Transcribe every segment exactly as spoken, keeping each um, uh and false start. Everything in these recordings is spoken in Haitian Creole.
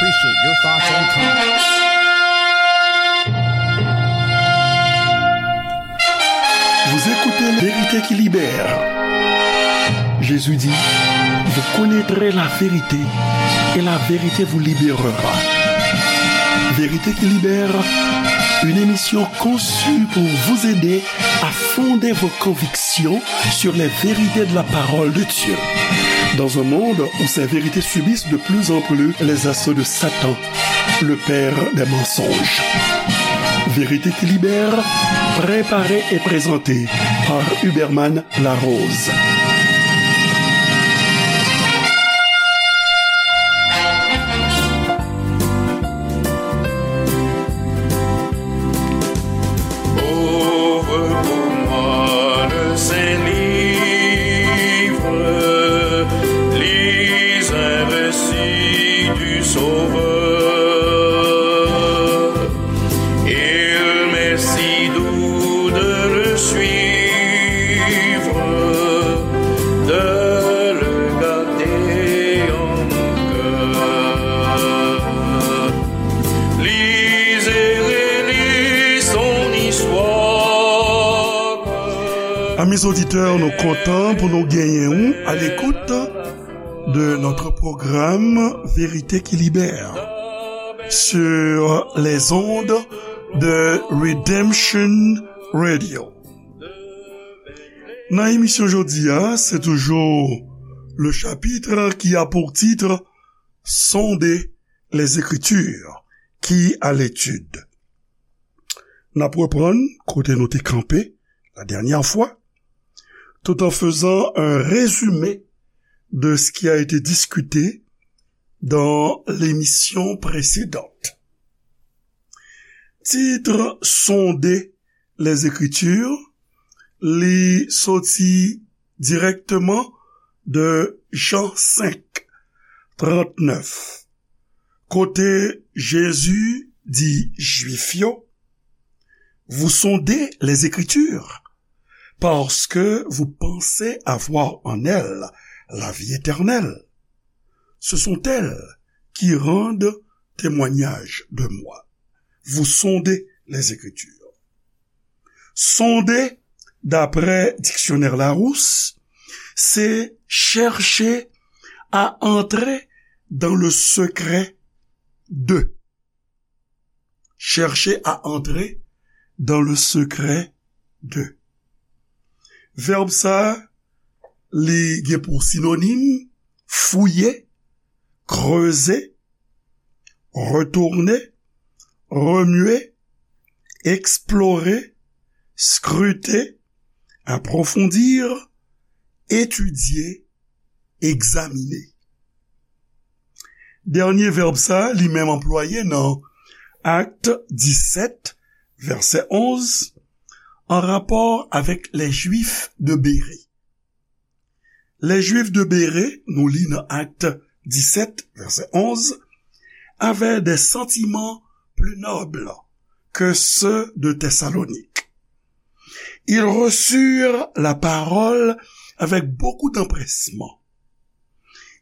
Appreciate your thoughts and comments. Vous écoutez La Vérité qui libère. Jésus dit, vous connaîtrez la vérité et la vérité vous libérera. Vérité qui libère, une émission conçue pour vous aider à fonder vos convictions sur les vérités de la parole de Dieu. Dans un monde où ces vérités subissent de plus en plus les assauts de Satan, le père des mensonges. Vérité qui libère, préparée et présentée par Huberman Larose. Ouvre pour moi le Saint-Livre, lis un récit du Sauveur. Il m'est si doux de le suivre, de le garder en mon cœur. Lis et relis son histoire. Amis auditeurs, nou kontan pou nou genyen ou à l'écoute de notre programme Vérité qui libère sur les ondes de Redemption Radio. Nan emisyon jodi a, se toujou le chapitre qui a pour titre Sonder les Écritures qui à l'étude. N ap reprann kote nou te kanpe la dernière fois, tout en faisant un résumé de ce qui a été discuté dans l'émission précédente. Titre Sonder les Écritures, li soti dirèkteman de Jan senk, trannèf, kote Jezi di Jwif yo, vous sondez les Écritures, parce que vous pensez avoir en elles la vie éternelle. Ce sont elles qui rendent témoignage de moi. Vous sondez les Écritures. Sonder, d'après dictionnaire Larousse, c'est chercher à entrer dans le secret de. Chercher à entrer dans le secret de. Vèb sa, li gen pou sinonim fouye, kreze, retounen, remye, eksplore, skrite, apwofondi, etidye, egzamine. Dènye vèb sa, li menm anplwaye nan Akt disèt, vèsè onz, an rapò avèk les Juifs de Bérée. Les Juifs de Bérée, nou li nan Akt disèt, vèsè onz, avaient des sentiments plus nobles que ceux de Thessalonique. Ils reçurent la parole avec beaucoup d'empressement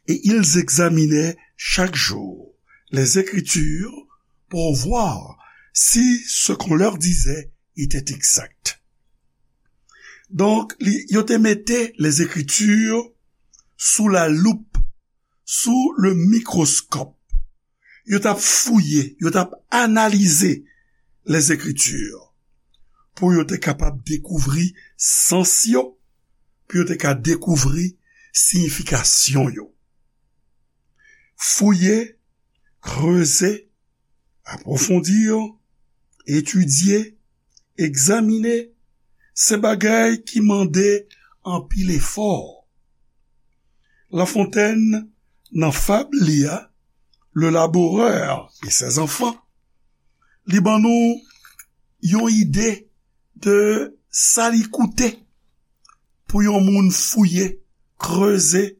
et ils examinaient chaque jour les Écritures pour voir si ce qu'on leur disait était exact. Donk, li, yo te mete les Écritures sous la loupe, sous le microscope. Yo t ap fouye, yo t ap analize les Écritures pou yo te kapab dekouvri sans yo, pou yo te ka dekouvri siyifikasyon yo. Fouye, kreze, apwofondi, etidye, egzamine, se bagay ki mande anpil efò. La Fontaine, nan fab li a, Le laboureur et ses enfants, li ban nou yon ide de sa li koute pou yon moun fouye, kreze,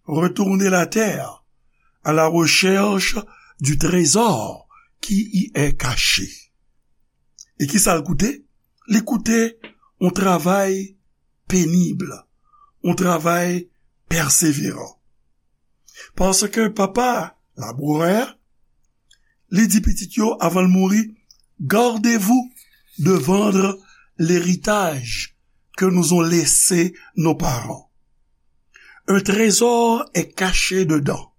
retourner la terre à la recherche du trésor qui y est caché. E ki sa l koute? Li koute yon travay penib, yon travay pèseveran. Paske papa labourè, Li di pitit yo, avan l mouri, gardez-vous de vendre l'héritage que nous ont laissé nos parents. Un trésor est caché dedans.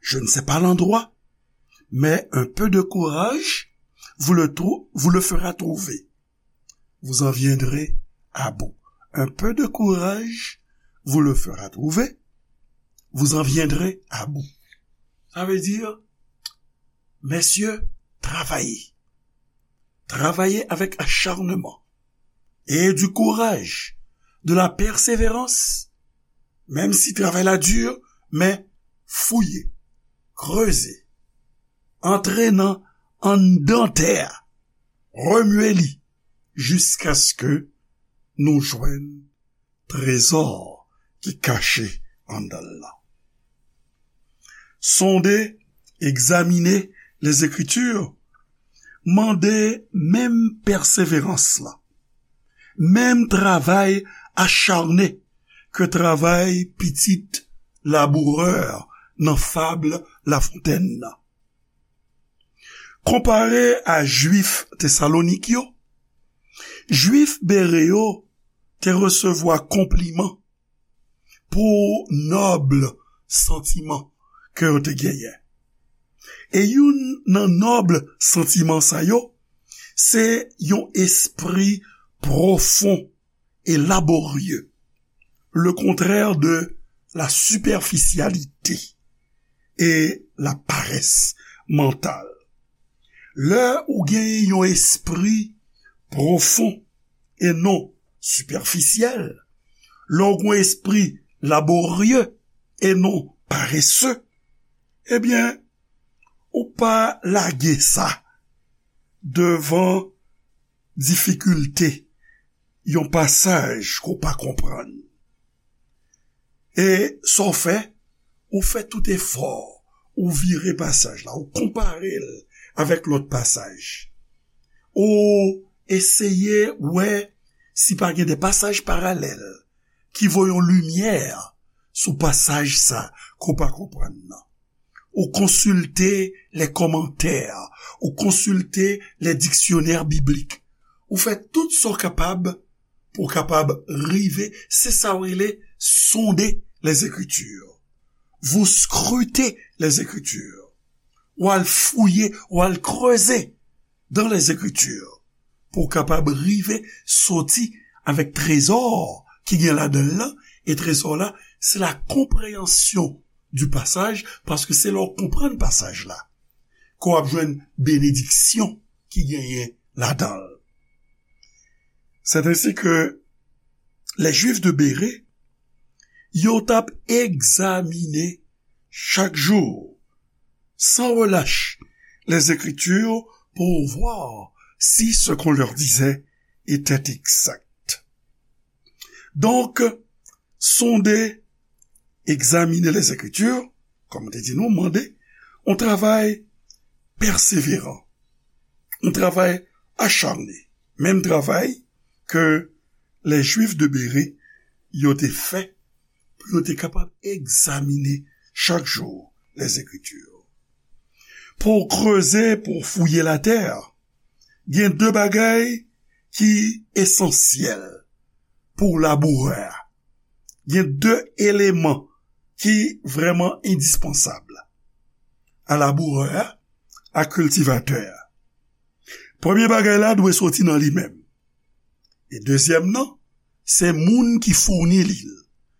Je ne sais pas l'endroit, mais un peu de courage vous le trou-, vous le fera trouver. Vous en viendrez à bout. Un peu de courage vous le fera trouver. Vous en viendrez à bout. Sa vle di, mesye, travay. Travay avèk acharnement et du courage, de la persévérance, menm si travay la di, men fouye, kreze, antre nan anndan tè a, remye li, jiskaske nou jwenn trezò ki kache anndan l lan. Sonde, egzamine Lèzekriti, mande menm pèseverans lan, menm travay acharne ke travay pitit labourè nan fab Lafontèn nan. Konpare a Jwif Tesalonik yo, Jwif Bere yo te resevwa konpliman pou nòb santiman ke yo te genyen. E youn nan nòb santiman sa yo, se yon espri pwofon e laborye, le contraire de la superficialité et la paresse mentale. Lè ou gen yon espri pwofon e non sipèfisyèl, lè w gen yon espri laborye e non parese, ebyen, ou pa lage sa devan difikilte yon pasaj ke w pa konprann. E sa w fè, ou fè tout efò, ou vire pasaj la, ou konpare l avèk lòt pasaj. Ou eseye wè si pa gen de pasaj paralèl ki voye yon limyè sou pasaj sa ke w pa konprann nan. Ou konsilte lè kòmantè, ou konsilte lè diksyonè biblik. Ou fè tout sa w kapab pou w kapab rive, se sa w rele sonde Lèzekriti. Vous scrutez les Écritures. Ou al fouye, ou al kreze dans les Écritures. Pou w kapab rive soti avèk trezò ki gen ladan l lan, e trezò la, se la konpreyansyon du pasaj, paske se lè w konprann pasaj la, ke w ap jwenn benediksyon ki genyen ladan l. C'est ainsi que les Juifs de Bérée, yo t ap egzamine chak jou, sans relâche, les Écritures pour voir si ce qu'on leur disait était exact. Donk, sonde, egzamine Lèzekriti, kòm te di nou, mande, yon travay pèseveran, yon travay acharne, menm travay ke lè Jwif de Bere yo te fè pou yo te kapab egzamine chak jou Lèzekriti. Pou w kreze, pou w fouye latè, gen de bagay ki esansyèl pou labourè a. Gen de eleman ki vrèman endispansab a labourè a, a kiltivatè a. Premye bagay la dwe soti nan li menm. E dezyèm nan, se moun ki founi li l,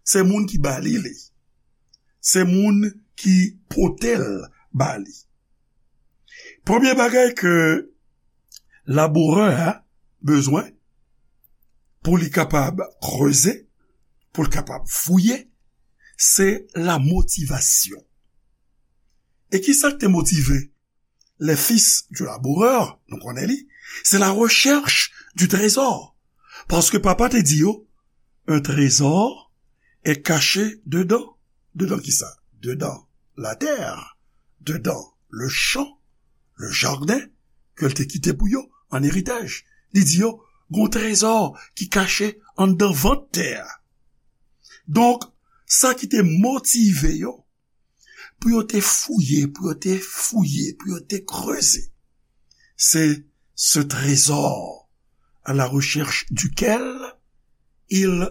se moun ki ba li li, se moun ki pote l ba li. Premye bagay ke labourè a bezwen pou li kapab kreze, pou l kapab fouye, se la motivasyon. E ki sa k te motive les fils du laboureur, nou konnen li, c'est la recherche du trésor. Paske papa te di yo, un trésor est caché dedans. Dedan ki sa? Dedan latè, dedan le champ, le jardin, ke l te kite pou yo an eritaj. Li di yo, gon trezò ki kache anndan vant tè a. Donk, sa ki te motive yo, pou yo te fouye, pou yo te fouye, pou yo te kreze. C'est ce trésor à la recherche duquel ils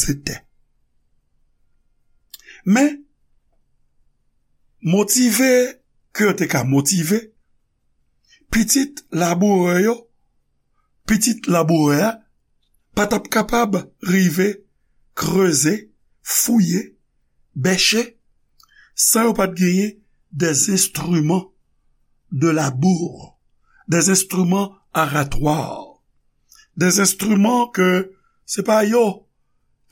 étaient. Men, motive ke yo te ka motive, pitit labourè yo, pitit labourè a, pa t ap kapab rive kreze, fouye, bèche, san yo pa t genyen des instruments de labour, des instruments aratoires, des instruments ke se pa yo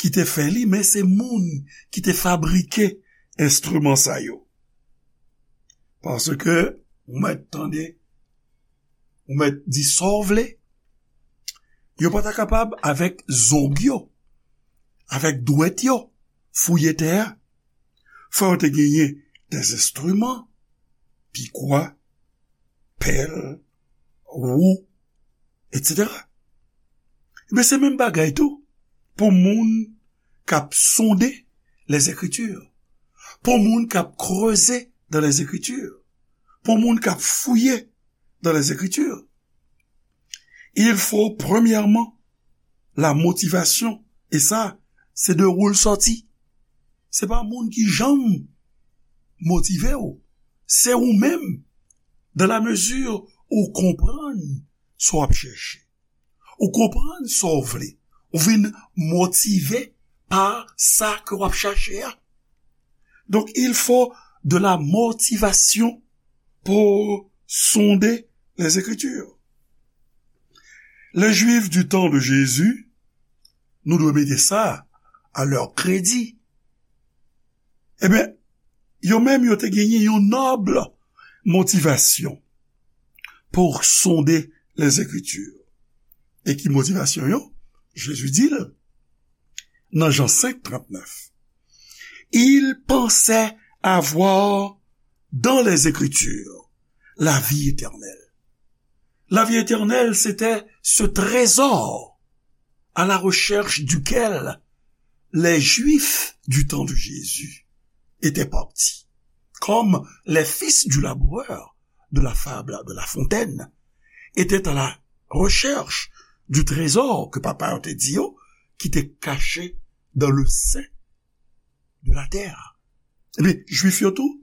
ki te fè li, men se moun ki te fabrike enstriman sa yo. Paske, ou mèt tande, ou mèt di sa w vle, yo pa ta kapab avèk zong yo, avèk dwèt yo, fouye tè a. Fò yo te genyen des instruments, pikwa, pèl, wou, etsetera. Ebyen, se menm bagay tou pou moun k ap sonde Lèzekritir, pou moun k ap kreze dans les Écritures, pou moun k ap fouye dans les Écritures. Il faut premièrement la motivation, e sa, se de ou l sòti. Se pa moun ki janm motive w, se ou menm, dans la mesure ou konprann sa w ap chèche. Ou konprann sa w vle. Ou vin motive pa sa ke w ap chache a. Donc, il faut de la motivation pour sonder les Écritures. Les Juifs du temps de Jésus, nou dwe mete sa à leur crédit. Ebyen, yo menm yo te genyen yon nòb motivasyon pour sonder les Écritures. E ki motivasyon yo? Jezi di l nan Jan senk trannèf, ils pensaient avoir dans les Écritures la vie éternelle. La vie éternelle, c'était ce trésor à la recherche duquel les Juifs du temps de Jésus étaient partis, comme les fils du laboureur de la fable de La Fontaine étaient à la recherche du trésor ke papa yo te di yo, ki te caché dans le sein de la terre. Ebyen, Jwif yo tou,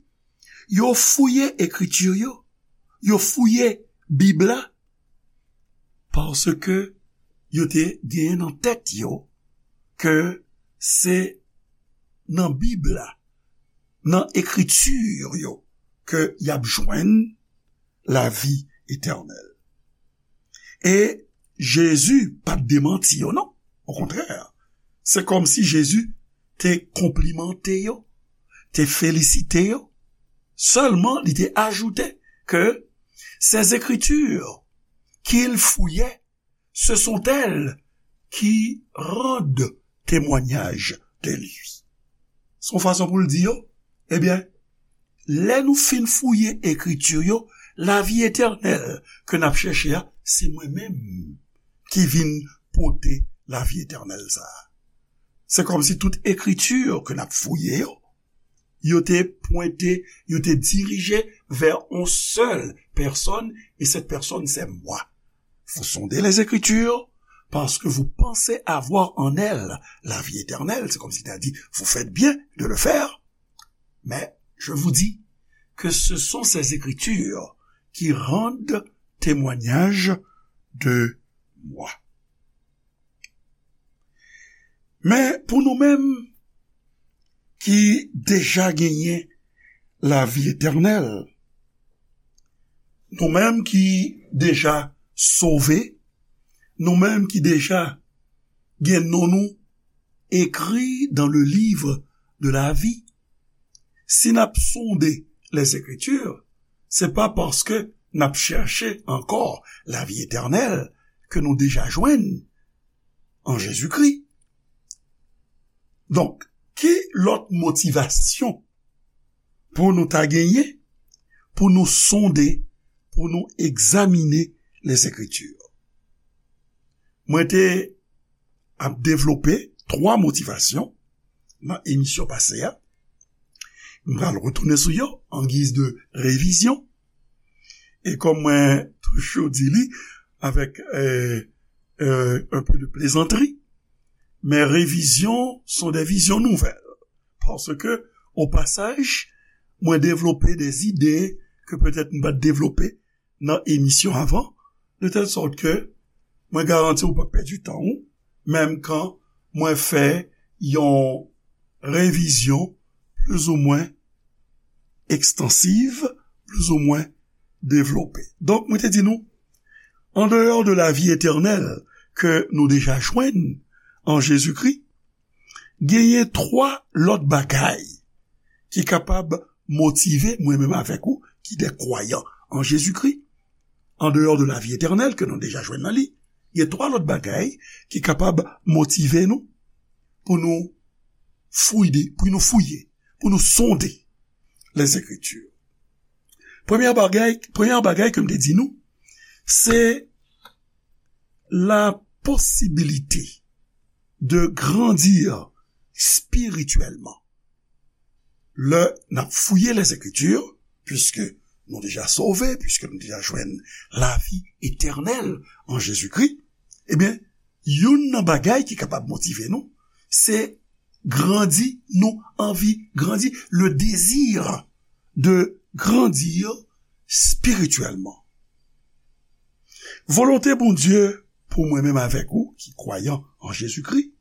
yo fouye ekriti yo, yo fouye Bib la, paske yo te genyen nan tèt yo ke se nan Bib la, nan ekriti yo, ke y ap jwenn lavi etènèl. E Jezi pa t demanti yo, non. Okontrè, se kòmsi Jezi te konplimante yo, te felisite yo. Sèlman, li te ajoute que ces écritures qu'ils fouillaient, ce sont elles qui rendent témoignage de lui. Se yon fason pou l di yo, ebyen, lè nou fin fouye ekriti yo, lavi etènèl ke n ap chèche a, se mwen menm ki vin pote lavi etènèl sa a. Se kòmsi tout ekriti ke n ap fouye yo, yo te pwente, yo te dirije vè yon sèl pèsòn, e cette personne, c'est moi. Vous sondez les Écritures parce que vous pensez avoir en elles la vie éternelle. C'est comme s'il t'a dit, vous faites bien de le faire, mais je vous dis que ce sont ces Écritures qui rendent témoignage de moi. Men pou nou menm ki deja genyen lavi etènèl, nou menm ki deja sove, nou menm ki deja gen non nou ekri dans le livre de la vie, si n ap sonde les Écritures, se pa paske n ap chèche ankò lavi etènèl ke nou deja jwenn an Jezikri. Donk, ki lòt motivasyon pou nou ta genyen, pou nou sonde, pou nou egzamine les Écritures? Mwen te ap devlope twa motivasyon nan emisyon pase a. M pral retounen sou yo an giz de revizyon. E kòm mwen toujou di li avèk euh, euh, un peu de plaisanterie, mes révisions sont des visions nouvelles. Paske, o pasaj, mwen devlope de ide ke petèt m pa t devlope nan emisyon avan, de tèl sòt ke mwen garanti w pa pèdi tan w, menm kan mwen fè yon revizyon plizoumwen ekstansiv, plizoumwen devlope. Donk, mwen te di nou, an deyò de lavi etènèl ke nou deja jwenn an Jezikri, genyen twa lòt bagay ki kapab motive mwen menm avèk ou ki de kwayan an Jezikri. An deyò de lavi etènèl ke nou deja jwenn nan li, gen twa lòt bagay ki kapab motive nou pou nou fouye, pou nou fouye, pou nou sonde Lèzekriti. Premye bagay, premye bagay ke m te di nou, se la posibilite de grandir spirityèlman. Lè n ap fouye Lèzekriti, piske nou deja sove, piske nou deja jwenn lavi etènèl an Jezikri, ebyen, youn nan bagay ki kapab motive nou, se grandi, nou anvi grandi, le désir de grandir spirituellement. Volonte Bondye pou mwen menm avèk ou ki kwayan an Jezikri,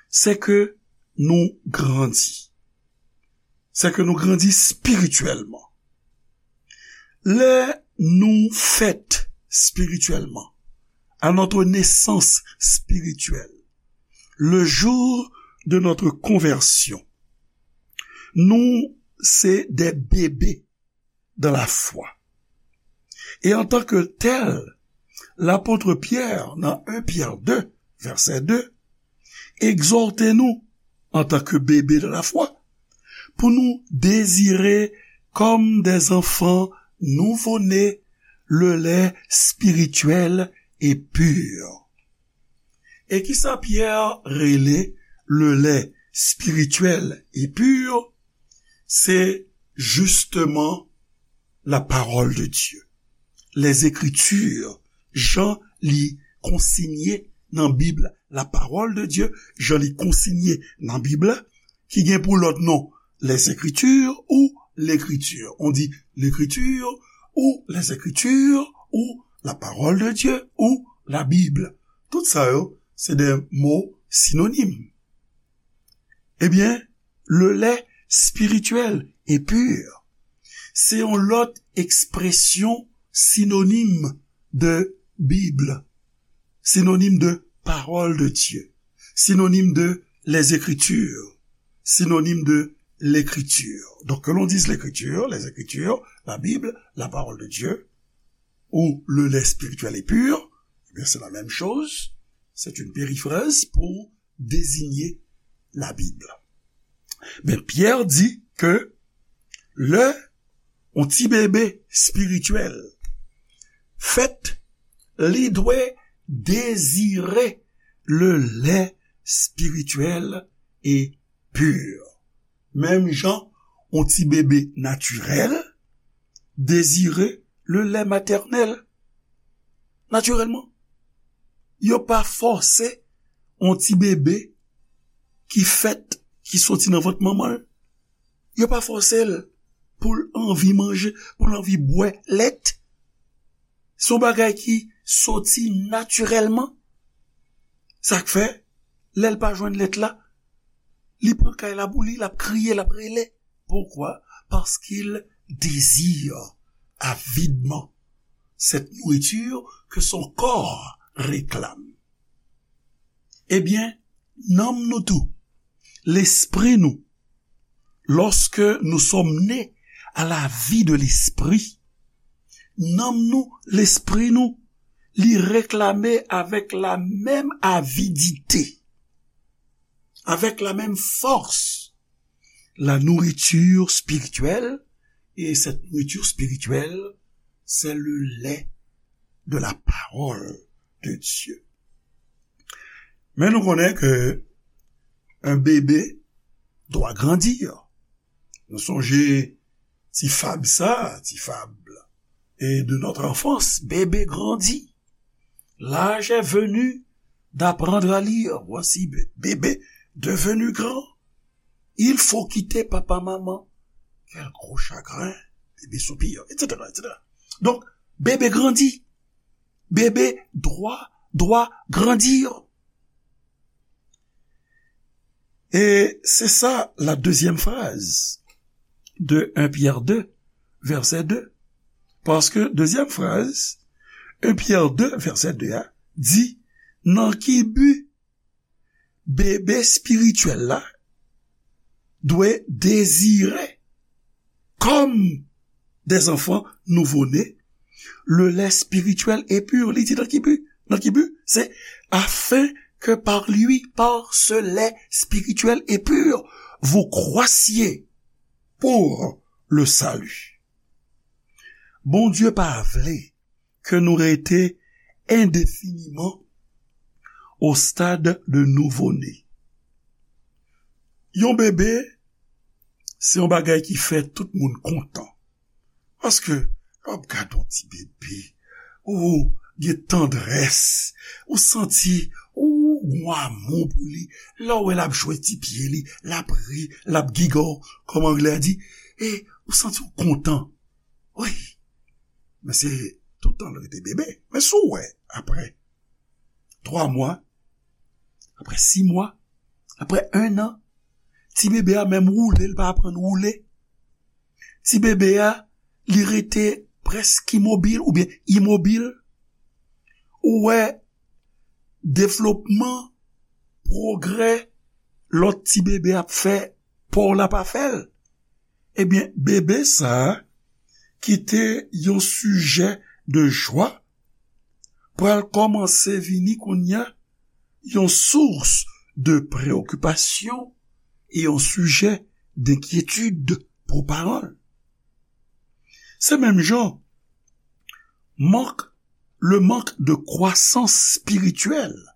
se ke nou grandi. Se ke nou grandi spirityèlman. Lè nou fèt spirityèlman, à notre naissance spirituelle, le jour de notre conversion, nou se de bebe dans la foi. Et en tant que tel, l'apôtre Pierre, nan un Pyè de, vèsè de, egzòte nou, antanke bebe de la foi, pou nou dezire kòm des enfants nouveau-nés le lait spirituel et pur. E kisa Pyè rele le lait spirituel et pur? Se justement la parole de Dieu. Les Écritures, jan li konsinye nan Bib la, la parole de Dieu, jan li konsinye nan Bib la, ki gen pou lòt non, les Écritures ou l'écriture. On dit l'écriture ou les Écritures ou la parole de Dieu ou la Bible. Tout sa yo, se de mo sinonim. Ebyen, le lait spirituel et pur, se yon lòt ekspresyon sinonim de Bib, sinonim de parole de Dieu, sinonim de les Écritures, sinonim de l'écriture. Donc, que l'on dise l'écriture, les Écritures, la Bible, la parole de Dieu, ou le lait spirituel et pur, eh bien, c'est la même chose. C'est une périphrase pour désigner la Bible. Men Pyè di ke lè yon ti bebe espirityèl fèt, li dwe dezire le lait spirituel et pur. Menm jan yon ti bebe natirèl dezire le lait maternel. Natirèlman. Yo pa fòse yon ti bebe ki fèt, ki soti nan vant manman l. Yo pa fòse l pou l anvi manje, pou l anvi bwè lèt. Se yon bagay ki soti natirèlman. Sa k fè, lè l pa jwenn lèt la, li pran kay la pou li, l ap kriye, l ap rele. Pourquoi? Parce qu'il désire avidement cette nourriture que son corps réclame. Ebyen, nanm nou tou, lespri nou, lorsque nous sommes nés à la vie de l'esprit, nanm nou, lespri nou, li reklame avec la même avidité, avec la même force, la nourriture spirituelle, et cette nourriture spirituelle, c'est le lait de la parole de Dieu. Men nou konnen ke un bébé doit grandir. Nou sonje ti fab sa, ti fab e de notre enfance, bébé grandit. L'âge est venu d'apprendre à lire. Voici bé- bébé devenu grand. Il faut quitter papa, maman. Quel gros chagrin. Bébé soupir, et cetera, et cetera. Donc, bébé grandit. Bébé doit, doit grandir. Et c'est ça la deuxième phrase de un Pierre deux, verset deux. Paske dezyèm fraz, un Pierre deux, verset deux a, di, nan ki bi bebe espirityèl la dwe dezire, comme des enfants nouveau-nés, le lait spirituel et pur. Li di nan ki bi? Nan ki bi? C'est afin que par lui, par ce lait spirituel et pur, vous croissiez pour le salut. Bondye pa vle ke nou rete endefiniman au stade de nouveau-né. Yon bebe, se yon bagay ki fè tout moun kontan. Paske, lè w ap gade yon ti bebe, ou gen tandrès, ou santi, ou gen amou pou li. Lè w wè l ap jwe ti pye li, l ap ri, l ap gigo, kòm anglè a di, e ou santi w kontan. Wi, men se toutan l rete bebe. Men si w wè, apre twa mwa, apre sis mwa, apre en an, ti bebe a menm woule, l pa aprann woule. Ti bebe a, li rete prèske imobil oubyen imobil. Ou wè devlopman, pwogrè, lòt ti bebe ap fè, pa w la pa fè l. Ebyen, bebe sa a, ki te yon sijè de jwa, pral kòmanse vini kounye a yon source de préoccupation e yon sijè d'inquiétude pou paran l. Se menm jan, mank, le manque de croissance spirituelle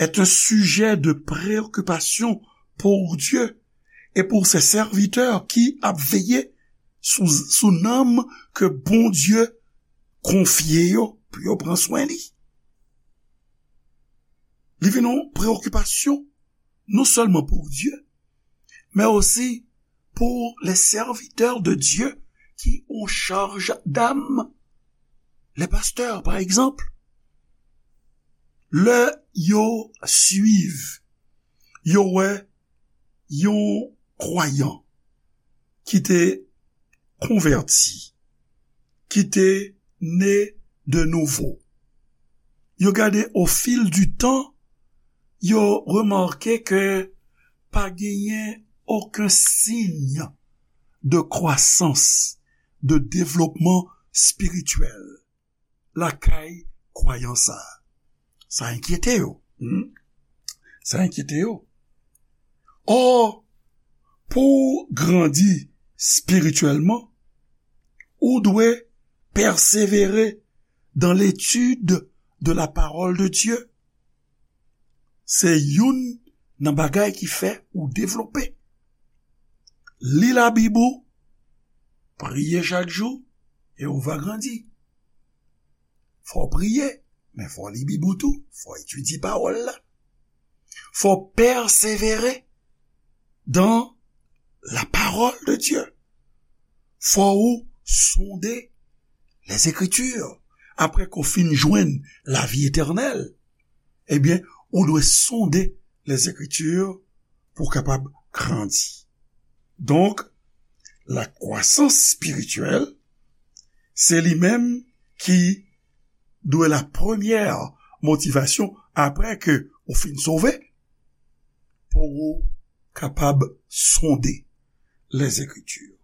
est un sujet de préoccupation pour Dieu et pour ses serviteurs ki ap veye sou, sou nanm ke Bondye konfye yo pou yo pran swen li. Li vin yon preokipasyon non sèlman pou Dye, men osi pou les serviteurs de Dieu ki an chaj d'âme, les pasteurs, pa egzanp. Lè yo swiv, yo wè yon kwayan ki te konvèti, ki te ne de nouvo. Yo gade au fil du temps, yo remake ke pa genyen okenn siy de kwasans, de devlopman espirityèl lakay kwayan sa a. Sa enkyete yo. Hmm? Sa enkyete yo. Or, pou w grandi espirityèlman, ou dwe pèsevere dans l'étude de la parole de Dieu. Se youn nan bagay ki fè ou devlope. Li Labib ou, priye chak jou, e ou va grandi. Fò w priye, men fò w li Bib ou tou, fò w etidye pawòl la. Fò w pèsevere dans la parole de Dieu. Fò ou sonde les Écritures. Apre ke w fin jwenn lavi etènèl, ebyen, ou dwe sonde les Écritures pou w kapab grandi. Donk, la kwasans espirityèl, se li menm ki dwe la premyè motivasyon apre ke ou fin sove, pou ou kapab sonde les Écritures.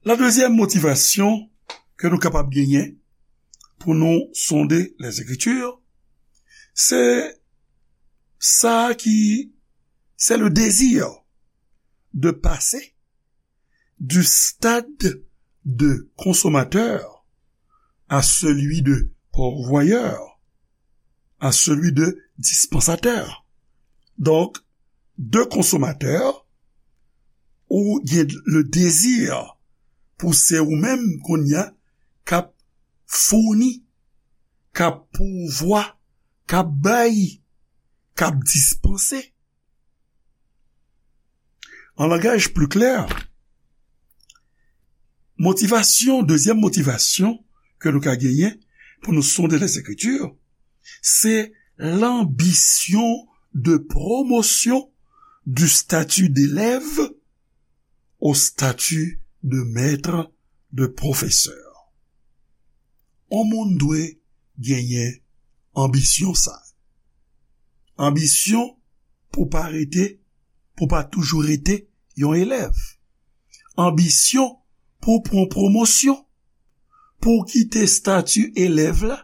La dezyèm motivasyon ke nou kapab genyen pou nou sonde les Écritures, se sa ki, c'est le désir de passer du stade de consommateur à celui de pourvoyeur, à celui de dispensateur. Donc, de consommateur ou gen le désir pou se ou menm kounye a k ap founi, k ap pouvwa, k ap bay, k ap dispanse. An langaj pli klè, motivasyon, dezyèm motivasyon ke nou ka genyen pou nou sonde Lèzekriti, se l'ambition de promotion du statut d'élève au statut de maître, de professeur. On moun dwe genyen anbisyon sa. Anbisyon pou pa rete, pou pa toujou rete yon elèv. Anbisyon pou pran pwomosyon, pou w kite stati elèv la,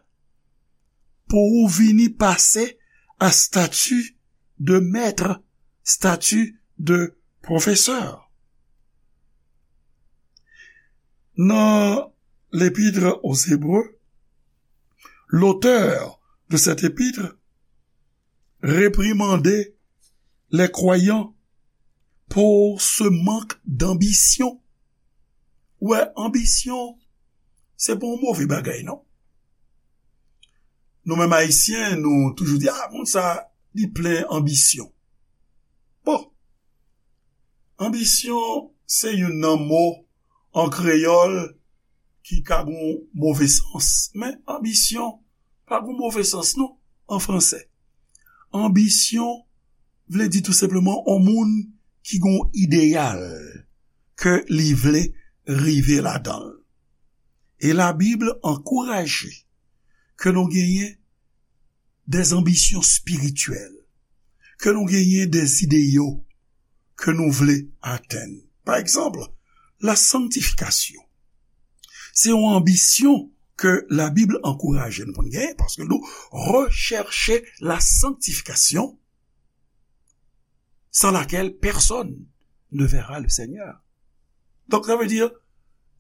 pou ou vini pase a stati de mèt, stati de pwofesè. Nan l'Épître aux Hébreux, l'auteur de cette épître réprimandait les croyants pour ce manque d'ambition. Ou wè, anbisyon, se pa yon move bagay, non. Nou menm Ayisyen, nou toujou di, "Ah, moun sa, li plen anbisyon." Bon, anbisyon, se youn nan mo an kreyòl ki ka gon move sans. Men anbisyon pa gon move sans, non, an fransè. Anbisyon vle di tou senpleman yon moun ki gon ideyal ke li vle rive ladan l. E Labib ankouraje ke nou genyen des ambitions spirituelles, ke nou genyen des idéaux ke nou vle atenn. Pa egzanp, la sanctification. Se yon anbisyon ke Labib ankouraje nou pou n genyen, paske nou rechèche la sanctification sans laquelle personne ne verra le Seigneur. Donk, sa vle di, lè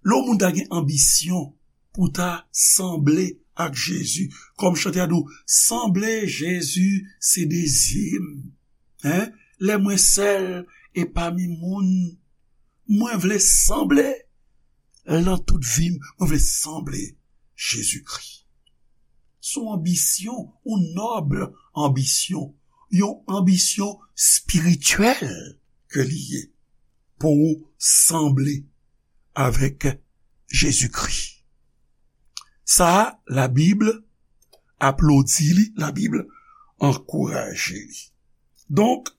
yon moun ta gen anbisyon pou ta sanble ak Jezi, kòm chante a di w, "Sanble Jezi, se dezi m." Hein? Lè mwen sèl e pami moun, mwen vle sanble, nan tout vi m, mwen vle sanble Jezikri. Se yon anbisyon, yon nòb anbisyon, yon anbisyon espirityèl ke li ye pou ou sanble avèk Jezikri. Sa a, Labib aplodi li, Labib ankouraje li. Donk,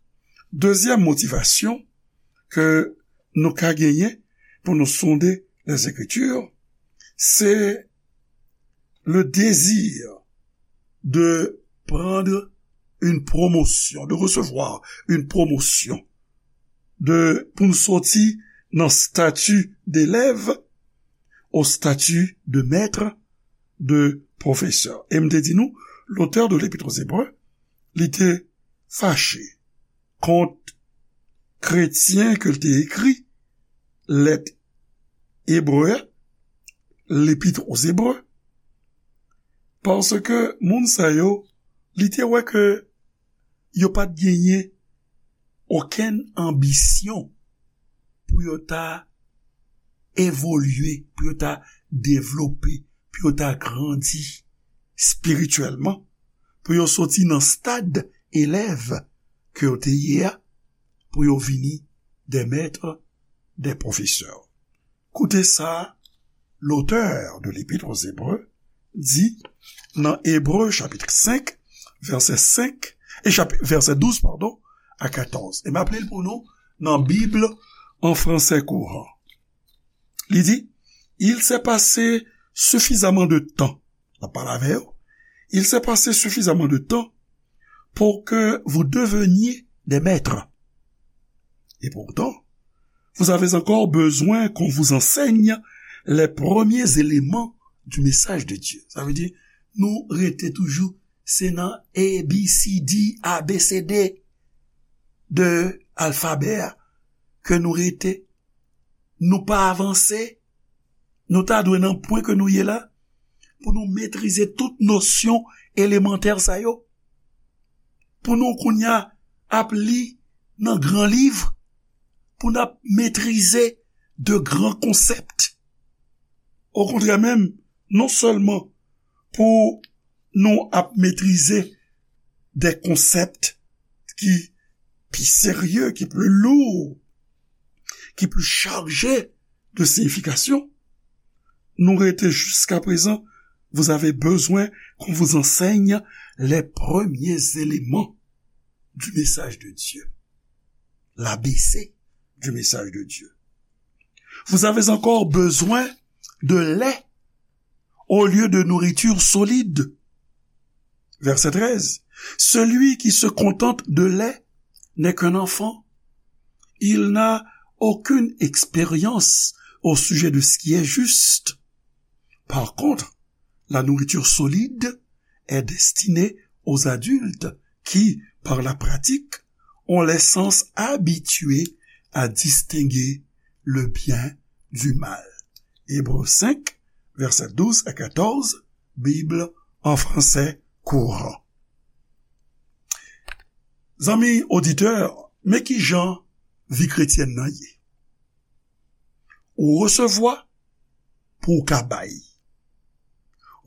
dezyèm motivasyon ke nou ka genyen pou nou sonde Lèzekriti, se le désir de prendre une promotion, de recevoir une promotion, de, pou n soti nan stati d'élève au statut de maître, de professeur. E m te di nou, l'auteur de l'Épître aux Hébreux, li te fache kont kretyen ke l te ekri lèt ebre a, l'Épître aux Hébreux, paske moun sa yo, li te wè ke yo pa t genyen okenn anbisyon pou yo ta evolye, pou yo ta devlope, pou yo ta grandi espirityèlman, pou yo soti nan stad elèv ke yo te ye a, pou yo vini des maîtres, des professeurs. Koute sa l'auteur de l'Épître aux Hébreux di nan Ebre chapit senk, vèsè senk, e chapi-, vèsè douz, padon, a katòz. E m ap li l pou nou nan Bib an fransè kouran. Li di, "Il s'est passé suffisamment de temps." L ap pale avè yo. "Il s'est passé suffisamment de temps pour que vous deveniez des maîtres. Et pourtant, vous avez encore besoin qu'on vous enseigne les premiers éléments du message de Dieu." Sa vle di, nou rete toujou, se nan A B C D, A B C D de alfabè a ke nou rete. Nou pa avanse. Nou ta dwe nan pwen ke nou ye la, pou nou metrize tout nosyon elemantè sa yo. Pou nou kounye a ap li nan gran liv, pou n ap metrize de gran konsèp. Okontrè menm, non sèlman pou nou ap metrize de konsèp ki pi serye, ki pli lou, ki pli chaje de siyifikasyon, nou rete jusqu'à présent, vous avez besoin qu'on vous enseigne les premiers éléments du message de Dieu, l'A B C du message de Dieu. Vous avez encore besoin de lait au lieu de nourriture solide. Verset treize. Celui qui se contente de lait n'est qu'un enfant. Il n'a aucune expérience au sujet de ce qui est juste. Par contre, la nourriture solide est destinée aux adultes qui, par la pratique, ont les sens habitués à distinguer le bien du mal. Ebre senk, vèsè douz a katòz, Bib an fransè kouran. Zanmi oditè, men ki jan vi kretyèn nan ye. Ou resevwa pou w ka bay.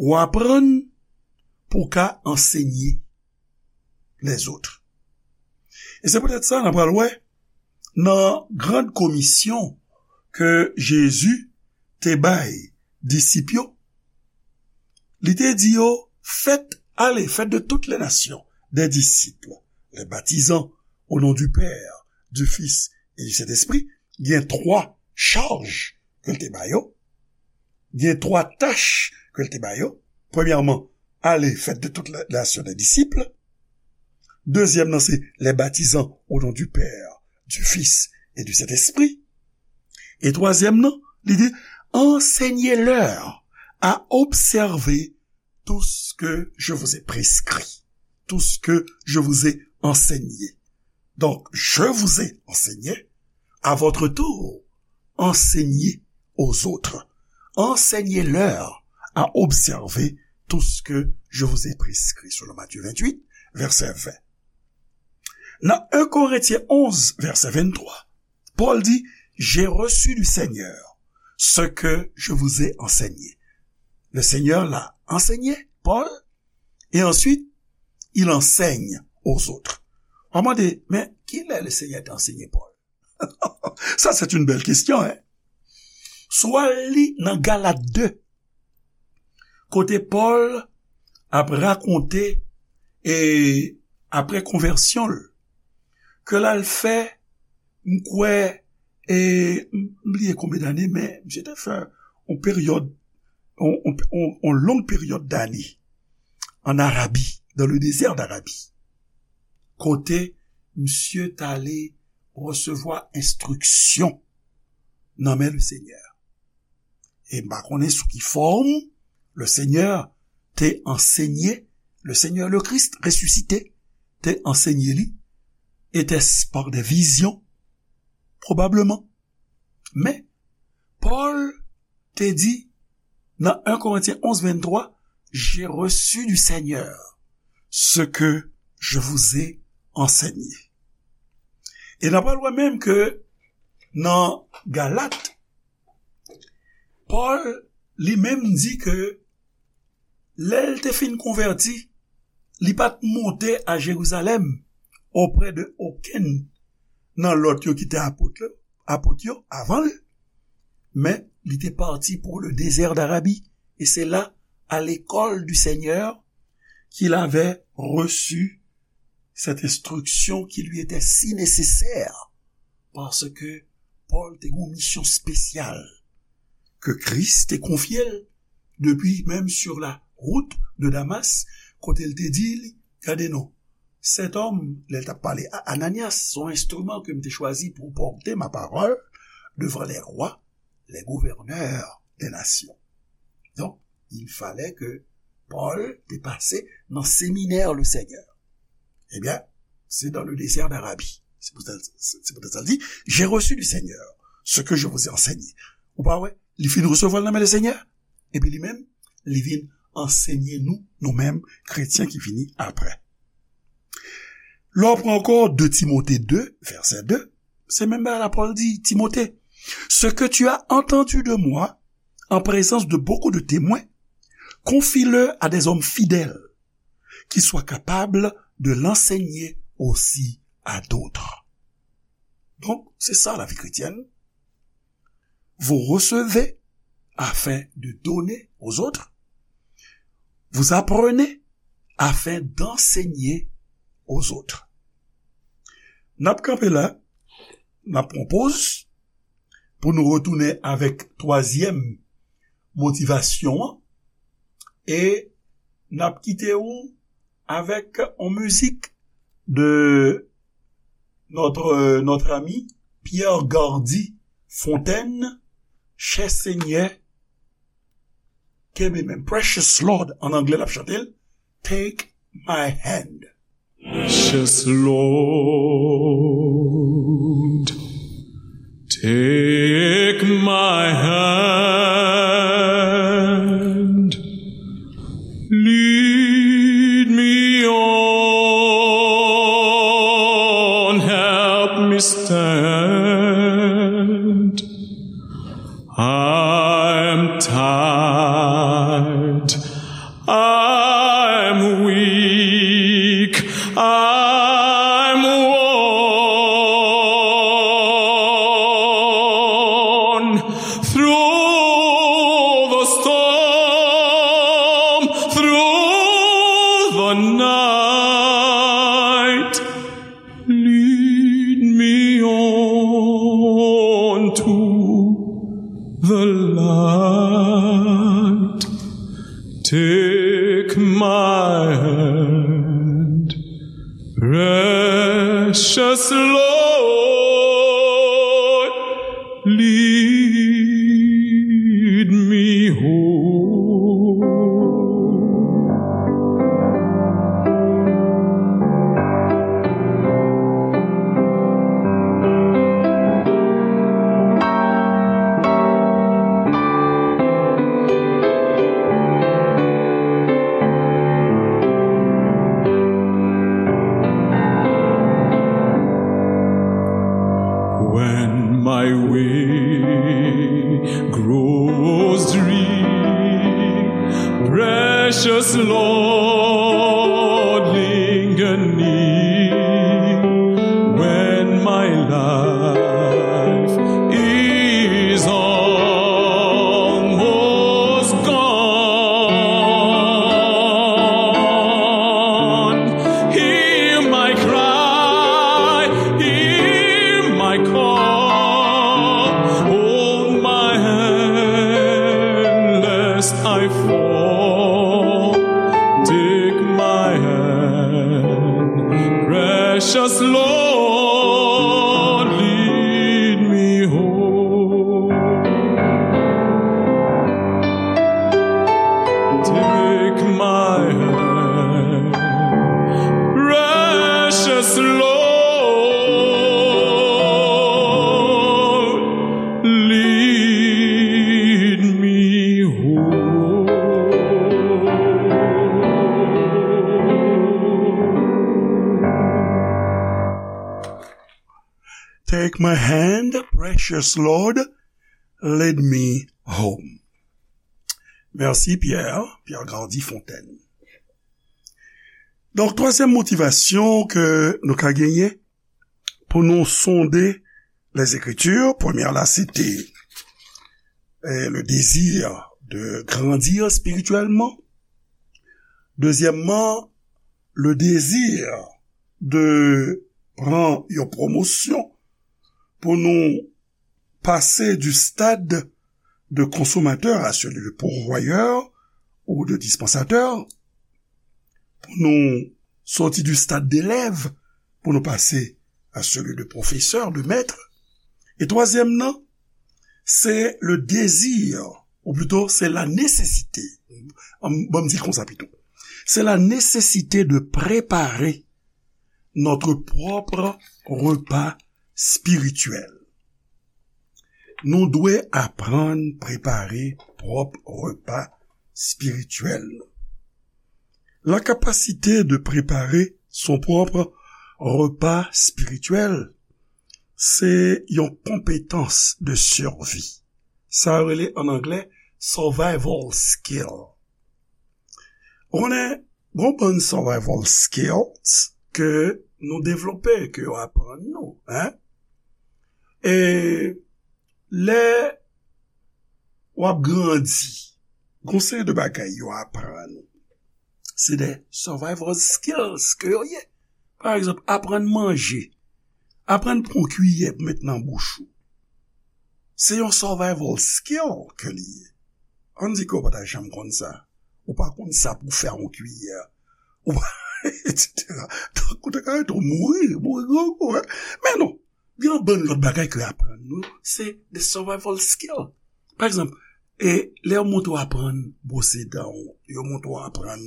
Ou aprann pou w ka ansenye lèzòt. E se poutèt sa, n a pral wè nan gran komisyon ke Jezi te bay disip yo, li te di yo, faites, allez, faites de toutes les nations des disciples, les baptisant au nom du Père, du Fils et du Saint-Esprit. Gen twa chaj ke l te ba yo. Gen twa tach ke l te ba yo. Premyèman, allez, faites de toutes les nations des disciples. Dezyèm nan, se les baptisant au nom du Père, du Fils et du Saint-Esprit. E twazyèm nan, li di, enseignez-leur à observer tout ce que je vous ai prescrit, tout ce que je vous ai enseigné. Donc, je vous ai enseigné, à votre tour, enseignez aux autres. Enseignez-leur à observer tout ce que je vous ai prescrit, selon Matthieu vingt-huit, verset vingt. Nan un Korentyen onz, vèsè venntwa, Paul dit, j'ai reçu du Seigneur ce que je vous ai enseigné. Le Seigneur l'a enseigné, Paul, et ensuite, il enseigne aux autres. On m'a dit, mais qui est le Seigneur d'enseigner Paul? Ça, c'est une belle question, hein? Swa li nan Galat de, kote Pòl ap rakonte e apre konvèsyon l, ke l al fè, m kwè, e m bliye konbyen dane, men misye te fè yon peryòd, yon, yon, yon, yon long peryòd dane an Arabi, dans le désert d'Arabie, kote misye t ale resevwa enstriksyon nan men le Senyè. E m pa konnen sou ki fòm le Senyè te ansenye, le Senyè le Kris resisite te ansenye li, était-ce par des visions? Probablement. Men, Pòl te di nan un Korentyen onz venntwa, j'ai reçu du Seigneur ce que je vous ai enseigné. E n ap wè menm ke nan Galat, Pòl li menm di ke lè l te fin konvèti, li pa t monte a Jerizalèm oprè de okenn nan lòt yo ki te apot yo, apot yo avan l, men li te parti pour le désert d'Arabie, et c'est là, à l'école du Seigneur, qu'il avait reçu cette instruction qui lui était si nécessaire, parce que Pòl te gen yon misyon espesyal ke Kris te konfye l depi menm sur la route de Damas, kote l te di li, gade non, cet homme, lè l t ap pale a Ananyas, se yon enstriman ke m te chwazi pou pòte ma parole devant les rois, les gouverneurs des nations. Donc, il fallait que Paul te pase nan seminè le Seigneur. Ebyen, se dans le désert d'Arabie. Se poutèt, se, se poutèt sa l di, j'ai reçu du Seigneur ce que je vous ai enseigné. Ou pa wè, li fin resevwa l nan men le Seigneur, epi li menm, li vin ansenye nou, nou menm, kretyen ki vini apre. Lè w pran ankò de Timote de, vèsè de, se menm bagay la Pòl di Timote, ce que tu as entendu de moi en présence de beaucoup de témoins, confie-le à des hommes fidèles qui soient capables de l'enseigner aussi à d'autres. Donk, se sa lavi kretyèn. Vous recevez afin de donner aux autres. Vous apprenez afin d'enseigner aux autres. N ap kanpe la, n ap pran poz pou nou retounen avèk twazyèm motivasyon an, e n ap kite ou avèk yon mizik de notre, notre ami Pierre Gardy Fontaine, Chè Senyè, kenbe men, Precious Lord, an anglè l ap chante l, Take My Hand. Precious Lord, take my hand, lead me on, help me stand. I'm tired, I'm weak, I'm worn. Through the storm, through the night, lead me on to the light. Take my hand, precious Lord, lead me home. When my way grows dreary, precious Lord, linger near. When my life is almost gone, hear my cry, hear my call. Hold my hand lest I fall. Take my hand, precious Lord, lead me home. Take my hand, precious Lord, lead me home. Take my hand, precious Lord, lead me home. Mèsi, Pierre, Pierre Gardy Fontaine. Donk, twazyèm motivasyon ke nou ka genyen pou nou sonde les Écritures, premyè la, se te, eh, le désir de grandir spirituellement. Dezyèmman, le désir de pran yon pwomosyon pou nou pase du stade de consommateur à celui de pourvoyeur ou de dispensateur, pou nou soti du stade d'élève pou nou pase à celui de professeur, de maître. E twazyèm nan, se le désir, ou plito, se la nécessité. An, ban m di l konsa pito. C'est la nécessité de préparer notre propre repas spirituel. Nou dwe aprann prepare pwòp repa espirityèl nou. La capacité de préparer son propre repas spirituel se yon konpetans de survie. Sa yo rele an anglè survival skill. Ou konnen, gon bann survival skills ke nou devlope, ke yo aprann nou, en? E lè w ap grandi, gon seri de bagay yo aprann ou. Se de survival skills ke yo ye. Pa egzanp, aprann manje. Aprann pran kiyè pou met nan bouch ou. Se yon survival skill ke li ye. Ann di ke w pa ta janm konn sa. Ou pa konn sa pou fè yon kiyè. Ou pa, et cetera. Donk, ou te ka rete w mouri, mouri grangou, en. Men non, gen yon bann lòt bagay ke yo aprann nou, se de survival skill. Pa egzanp, e lè yo montre w aprann bwose dan w, yo montre w aprann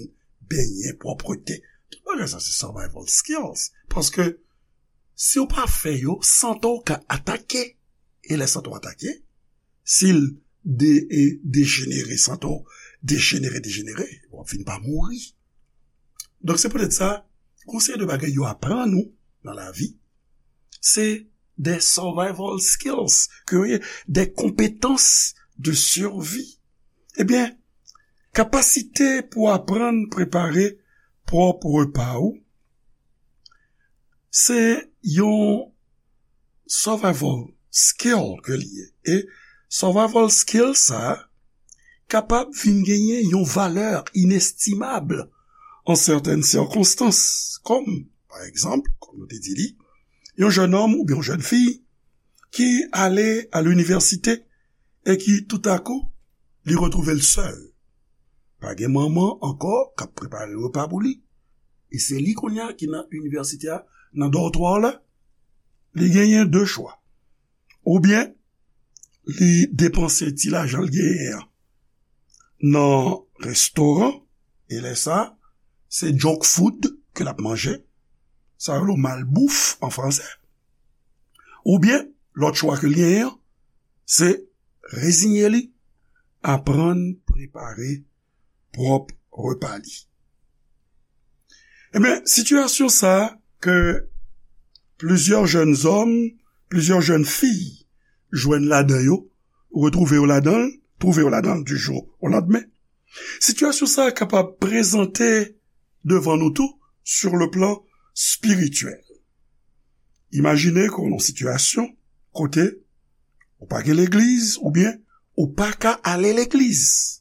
benyen, pwòpte. Tout bagay sa se survival skills. Paske si w pa fè yo, sante w ka atake. E lè sante w atake, si l de, e dejenere, sante w dejenere, dejenere, w ap fin pa mouri. Donk, se poutèt sa, gon seri de bagay yo aprann ou nan lavi, se de survival skills, ke yo ye, de konpetans de survie. Ebyen, kapasite pou aprann prepare pwòp repa ou, se yon survival skill ke li ye. E survival skill sa a kapab vin genyen yon valè inestimab an sètèn sikonstans, kòm, pa egzanp, kòm nou te di li, yon jèn òm oubyen yon jèn fi ki ale a linivèsite e ki toutakou li retwouve l sèl. Pa gen manman ankò k ap prepare repa pou li. E se li kounye a ki nan inivèsite a, nan dòtwa la. Li genyen de chwa. Oubyen, li depanse ti lajan l genyen an nan restoran, e lè sa, se junk food ke l ap manje. Sa yo rele malbouf an fransè. Oubyen, lòt chwa ke l genyen an, se reziye li, aprann prepare pwòp repa li. Ebyen, sitiyasyon sa a ke plizyè jèn zòm, plizyè jèn fi jwenn ladan yo, retwouve yo ladan l, twouve yo ladan l du jour au lendemain. Sitiyasyon sa a kapab prezante devan nou tou sur le plan spirityèl. Imajine ke w nan sitiyasyon kote ou pa gen legliz oubyen ou pa ka ale legliz.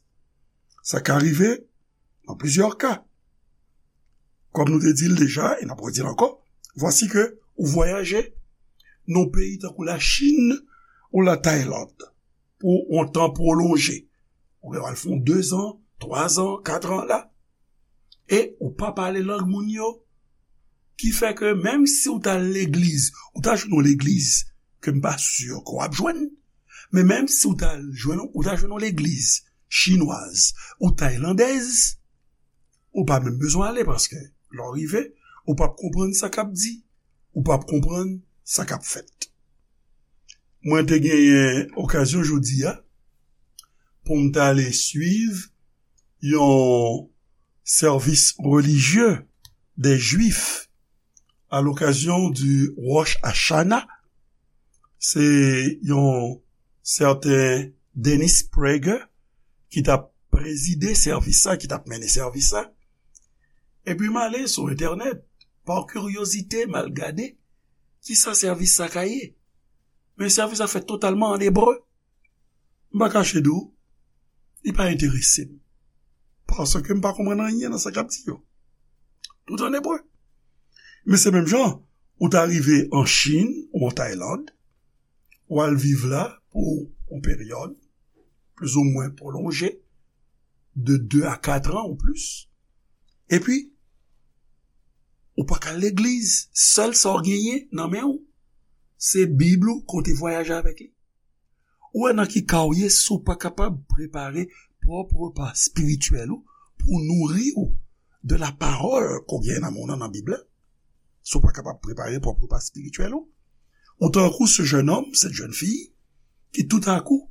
Sa ka rive nan plizyè ka. Kòm nou te di l deja, e n ap redi l ankò, vwasi ke ou vwayaje nan peyi tankou Lachin ou Latayland pou yon tan pwolonje. Ou gen al fè yon dezan, twazan, katran la. E ou pa pale lang moun yo. Ki fè ke menm si w t al legliz, ou ta jwenn yon legliz ke m pa si ke w ap jwenn. Men menm si w t al jwenn, ou ta jwenn yon legliz chinwaz ou taylandèz, ou pa menm bezwen ale paske lè w rive, ou p ap konprann sa k ap di, ou p ap konprann sa k ap fèt. Mwen te genyen okazyon jodi a pou m t ale swiv yon sèvis relijye de Jwif à l'occasion du Rosh Hashanah. Se yon sèten Dennis Prager ki t ap prezide sèvis sa, ki t ap mennen sèvis sa. Epi m ale sou entènèt, pa kiryozite, m al gade kisa sèvis sa ka ye. Men sèvis sa fèt totalman an ebre. M pa kache di w, li pa enterese m. Paske m pa konprann anyen nan sa k ap di yo. Tout an ebre. Men se menm jan, ou ta rive an Chin ou an Tayland, ou al viv la pou yon peryòd plizoumwen pwolonje, de de a kat an ou plis. Epi, ou pa ka al legliz, sèl sa w genyen nan men w, se Bib ou kote vwayaje avèk li. Ou wè nan ki ka w ye si w pa kapab prepare pwòp repa espirityèl ou pou nouri w de la parole ke w gen nan men w nan, nan Bib la? Si w pa kapab prepare pwòp repa espirityèl ou, ou tankou ce jeune homme, cette jeune fille, ki toutakou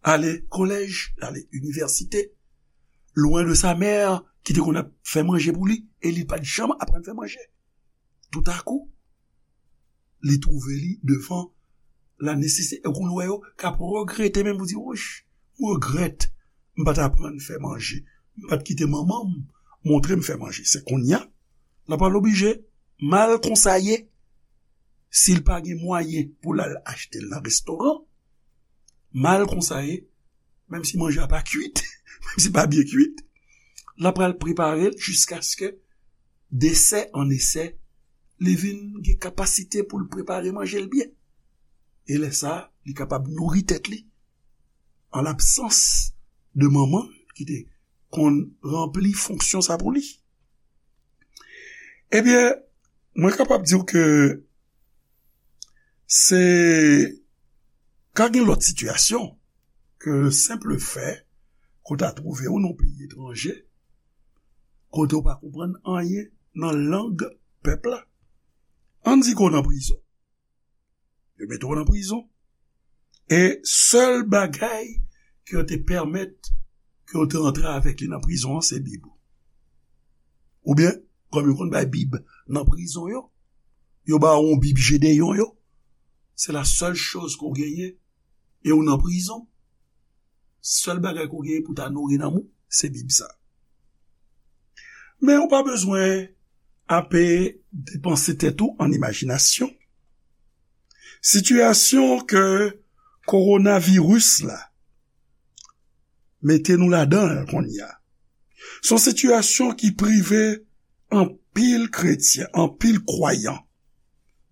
ale kolèj, ale inivèsite, lwen de sa mè ki te konn ap fè manje pou li, e li pa t janm aprann fè manje. Toutakou, li twouve li devan la nesesite. E kounye w wè yo k ap regrete menm pou di, "Wouch, mwen regrèt, m pa t aprann fè manje. M pa t kite manman m montre m fè manje." Se kounye a, l ap al oblije mal konsa ye. Si l pa gen mwayen pou l al achte l nan restoran, mal konsa ye, menm si manje a pa kwit, menm si pa byen kwit, l ap pral prepare l jiskaske desè an esè, li vin gen kapasite pou l prepare manje l byen. E lè sa a, li kapab nouri tèt li an labsans de manman ki te konn ranpli fonksyon sa pou li. Ebyen, mwen kapab di w ke se ka gen lòt sitiyasyon ke le senp fè ke w ta twouve w nan yon peyi etranje, kote w pa konprann anyen nan lang pèp la. Ann di ke w nan prizon. Yo mete w nan prizon. E sèl bagay ke yo te pèmèt ke yo te antre avèk li nan prizon an, se Bib ou. Oubyen, kòm yo konn bay Bib nan prizon yo, yo ba w yon Bib Jedeyon yo. Se la sèl choz ke w genyen. E w nan prizon. Sèl bagay ke w genyen pou ta nouri nanm ou, se Bib sa. Men ou pa bezwen ape depanse tèt ou an imajinasyon. Sitiyasyon ke kowonaviris la mete nou ladan l kounye a, se yon sitiyasyon ki prive anpil kretyen, anpil kwayan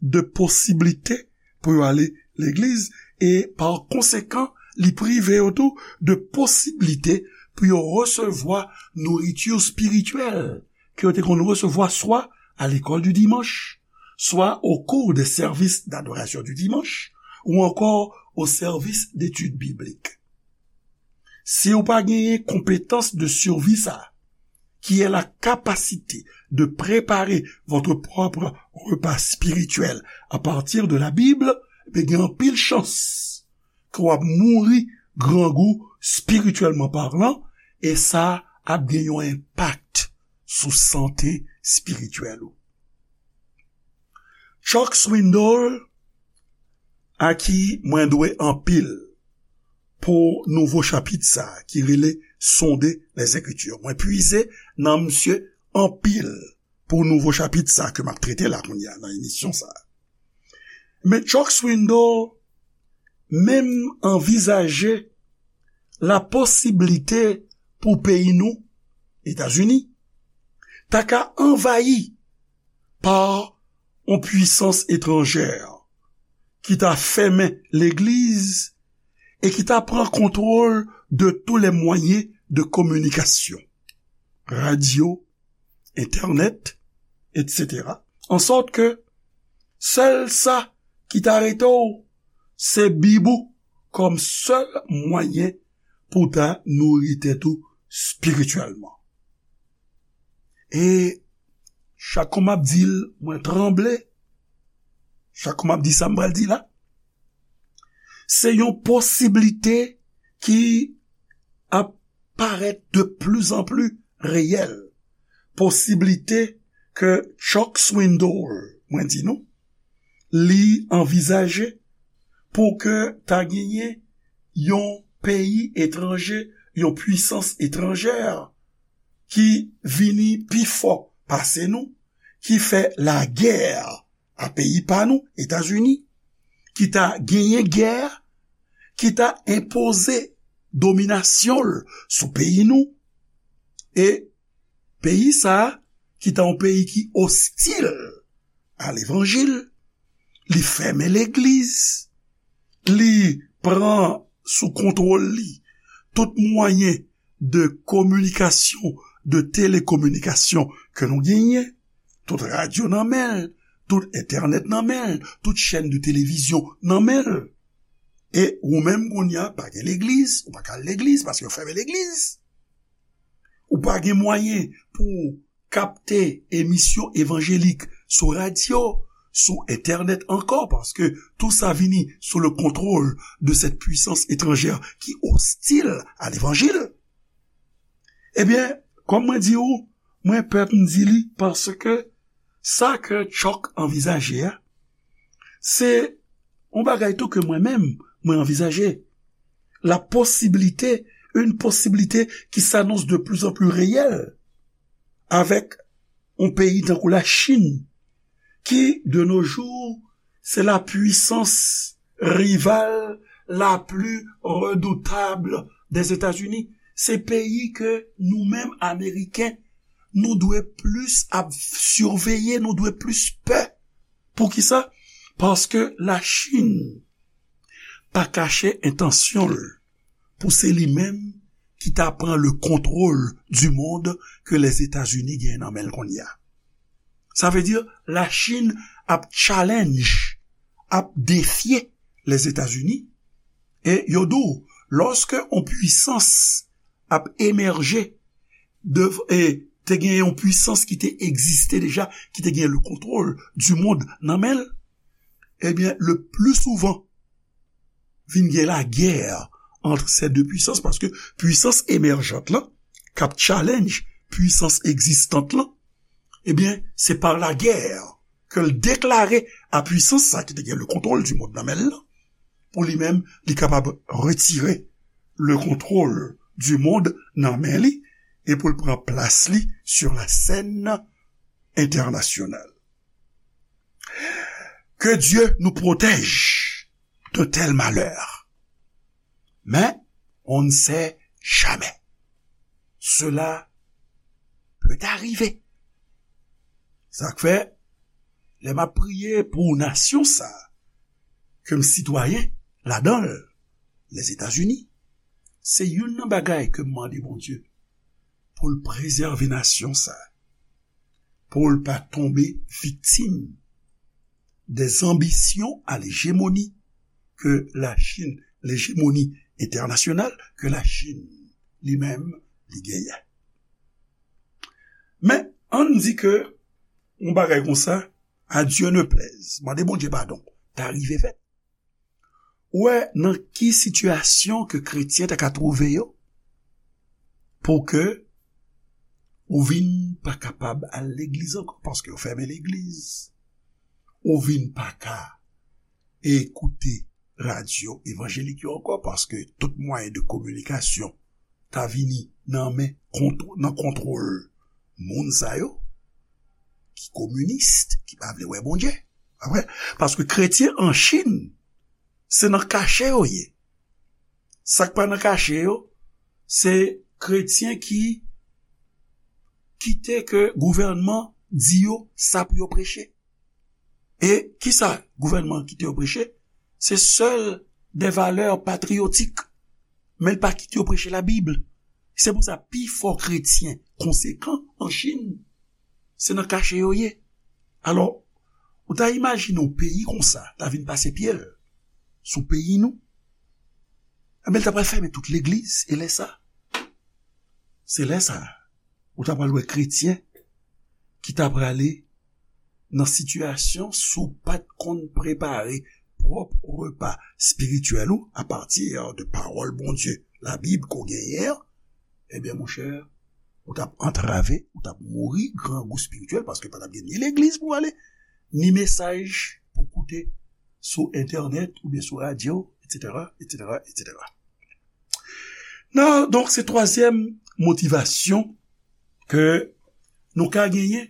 de posiblite pou yo ale legliz e, pa konsekan, li prive yo tou de posiblite pou yo resevwa nouriti espirityèl ke yo te konn resevwa swa à l'école du dimanche, soit au cours des services d'adoration du dimanche, ou encore au service d'études bibliques. Si ou pa genyen konpetans de survie sa, qui est la capacité de préparer votre propre repas spirituel à partir de la Bible, ben gen anpil chans ke w ap mouri grangou, spirityèlman palan, e sa ap gen yon enpak sou sante espirityèl ou. Chuck Swindoll, a ki mwen dwe anpil pou nouvo chapit sa ki rele Sonder les Écritures. Mwen pwize nan misye anpil pou nouvo chapit sa ke m ap trete la kounye a nan emisyon sa. Men Chuck Swindoll menm anvizaje la posiblite pou peyi nou, Etazini, ta ka anvayi pa yon pwisans etranjè ki ta fèmen legliz e ki ta pran kontwòl de tous les moyens de communication, radyo, entènèt, etsetera. Ansòt ke sèl sa ki ta rete w, se Bib ou kòm sèl mwayen pou w ta nouri tèt ou espirityèlman. E chak kou m ap di l, mwen tranble. Chak kou m ap di sa m pral di la, se yon posiblite ki ap parèt de plus en plus reyèl. Posiblite ke Chuck Swindoll, mwen di nou, li anvizaje pou ke ta genyen yon peyi etranje, yon pwisans etranjè ki vini pi fò pase nou, ki fè lagè a peyi pa nou, Etazini, ki ta genyen gè, ki ta enpoze dominasyon l sou peyi nou, e peyi sa a, ki ta yon peyi ki ostil a levanjil, li fèmen legliz, li pran sou kontwòl li tout mwayen de kominikasyon, de telekominikasyon ke nou genyen, tout radyo nan men l, tout entènèt nan men l, tout chèn de televizyon nan men l. E ou menm kounye a, pa gen legliz, ou pa ka al legliz paske yo fèmen legliz. Ou pa gen mwayen pou kapte emisyon evanjelik sou radyo, sou entènèt ankò, paske tou sa vini sou le contrôle de cette puissance étrangère qui hostile à l'évangile. Ebyen, kòm mwen di ou, mwen pè pou m di li, paske sa ke Chuck anvizaje a, se yon bagay tou ke mwen menm, mwen anvizaje. La possibilité, une possibilité qui s'annonce de plus en plus réelle avec yon peyi tankou Lachin, ki, de nos jours, se la puissance rivale la plus redoutable des États-Unis. Se peyi ke nou menm, Ameriken, nou dwe plis ap siveye, nou dwe plis pè. Poukisa? Paske Lachin pa kache entansyon l pou se li menm ki ta pran le contrôle du monde ke Lèzetazini genyen nan men l kounye a. Sa vle di, Lachin ap challenge, ap defye Lèzetazini. E yo di w, lòske yon pwisans ap emèje, de, e te gen yon pwisans ki te egziste deja, ki te gen le contrôle du monde nan men l, ebyen, le plus souvent, vin gen lagè entre ces deux puissances, paske pwisans emèjant lan, k ap challenge pwisans egzistant lan, ebyen, se pa lagè ke l deklare a pwisans sa ki te gen le contrôle du monde nan men l lan, pou li menm, li kapab retire le contrôle du monde nan men li, e pou l pran plas li sur la scène internationale. Que Dieu nous protège de tels malheurs. Mais on ne sait jamais. Cela peut arriver. Sa k fè, lè m ap priye pou nasyon sa, ke m sitwayen ladan l, Lèzetazini, se youn nan bagay ke m mande Bondye pou l prezève nasyon sa, pou l pa tonbe viktim des ambitions à l'hégémonie que la Chine, l'hégémonie internationale que la Chine li menm li genyen. Men, ann di ke yon bagay konsa, à Dieu ne plaise, mande Bondye padon, ta rive fèt. Ou wè nan ki sitiyasyon ke kretyen ta ka twouve yo pou ke ou vin pa kapab al legliz ankò, paske yo fèmen legliz. Ou vin pa ka ekoute radyo evanjelik yo ankò, paske tout mwayen de kominikasyon ta vini nan men, kontw-, nan kontwòl moun sa yo, ki kominis, ki pa vle wè Bondye. Apre, paske kretyen an Chin, se nan kache yo ye. Sa k pa nan kache yo, se kretyen ki kite ke gouvènman di yo sa pou yo preche. E kisa gouvènman kite yo preche? Se sèl de valè patriyotik. Men l pa kite yo preche Labib. Se pou sa, pi fò kretyen konsekan an Chin, se nan kache yo ye. Alò, ou ta imajine yon peyi konsa ta vin pase pye l sou peyi nou? Enben, l ta pral fèmen tout legliz, e lè sa, se lè sa, ou ta pral wè kretyen ki ta prale nan sitiyasyon si w pa t konn prepare pwòp repa espirityèl ou apati de pawòl Bondye, Labib ke w genyen an, ebyen, monchè, ou t ap antrave, ou t ap mouri grangou espirityèl, paske pa t ap gen ni legliz pou w ale, ni mesaj pou w koute sou entènèt oubyen sou radyo, etsetera, etsetera, etsetera. Nan, donk, se twazyèm motivasyon ke nou ka genyen,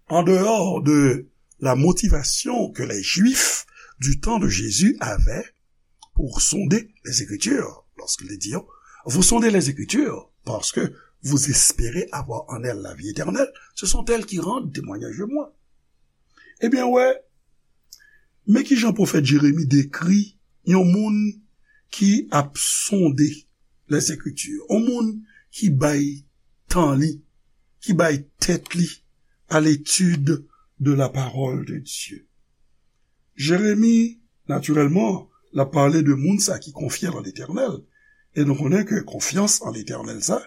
en dehors de la motivation que les Juifs du temps de Jésus avaient pour sonder les Écritures, lorsqu'il dit, vous sondez les Écritures parce que vous espérez avoir en elles la vie éternelle, ce sont elles qui rendent témoignage de moi. Ebyen, wè, men kijan pwofèt Jeremi dekri yon moun ki ap sonde Lèzekriti, yon moun ki bay tan li, ki bay tèt li à l'étude de la parole de Dieu. Jeremi, natirèlman, l ap pale de moun sa ki konfye nan Letènèl. E nou konnen ke konfyans an Letènèl sa,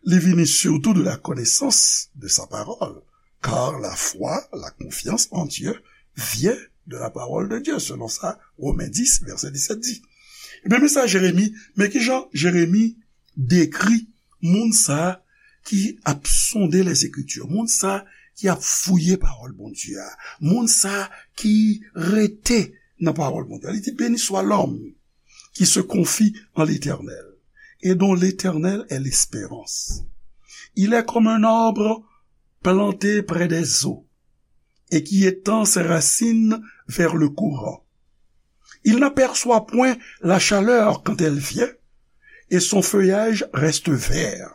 li vini surtout de la connaissance de sa parole. Car la foi, la confiance en Dieu vient de la parole de Dieu, selon sa Romen dis, vèsè disèt di. Ebyen, men sa Jeremi, men kijan Jeremi dekri moun sa ki ap sonde Lèzekriti, moun sa ki ap fouye pawòl Bondye a, moun sa ki rete nan pawòl Bondye. Li di, béni soit l'homme qui se confie en l'Éternel et dont l'Éternel est l'espérance. Il est comme un arbre planté près des eaux et qui étend ses racines vers le courant. Il n'aperçoit point la chaleur quand elle vient, et son feuillage reste vert.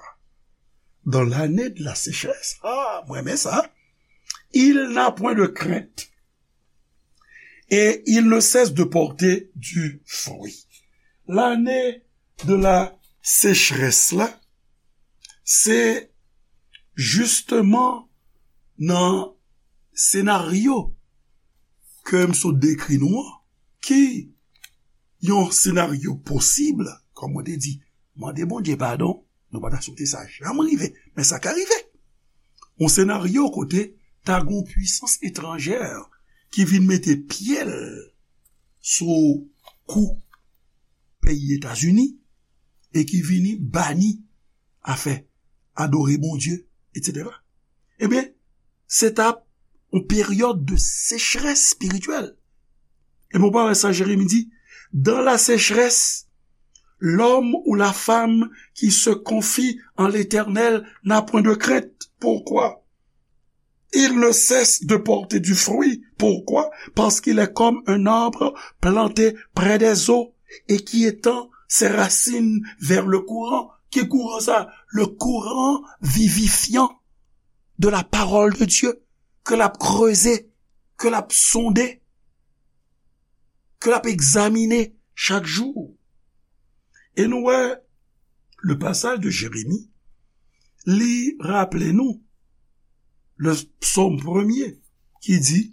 Dans l'année de la sécheresse, ah, mwen renmen sa, il n'a point de crainte, et il ne cesse de porter du fruit. Lane de la sechrès la, se jisteman nan senaryo ke m sot dekri nou an, ki yon senaryo posib, kòm mwen te di, mande Bondye padon, nou pa ta swete sa janm rive, men sa ka rive. Yon senaryo kote ta gon pwisans etranjè ki vin mete pye l sou kou peyi Etazini e ki vini bani afè adore Bondye, etsetera. Ebyen, se t ap yon peryòd de sechrès espirityèl. E bon, pa wè sa Jeremi di, dans la sécheresse, l'homme ou la femme qui se confie en l'Éternel n'a point de crainte. Pourquoi? Il ne cesse de porter du fruit. Pourquoi? Parce qu'il est comme un arbre planté près des eaux et qui étend ses racines vers le courant. Ki kouran sa? Le courant vivifiant de la parole de Dieu, ke l ap kreze, ke l ap sonde, ke l ap egzamine chak jou. E nou wè, le pasaj de Jeremi, li raple nou le psaume premier ki di,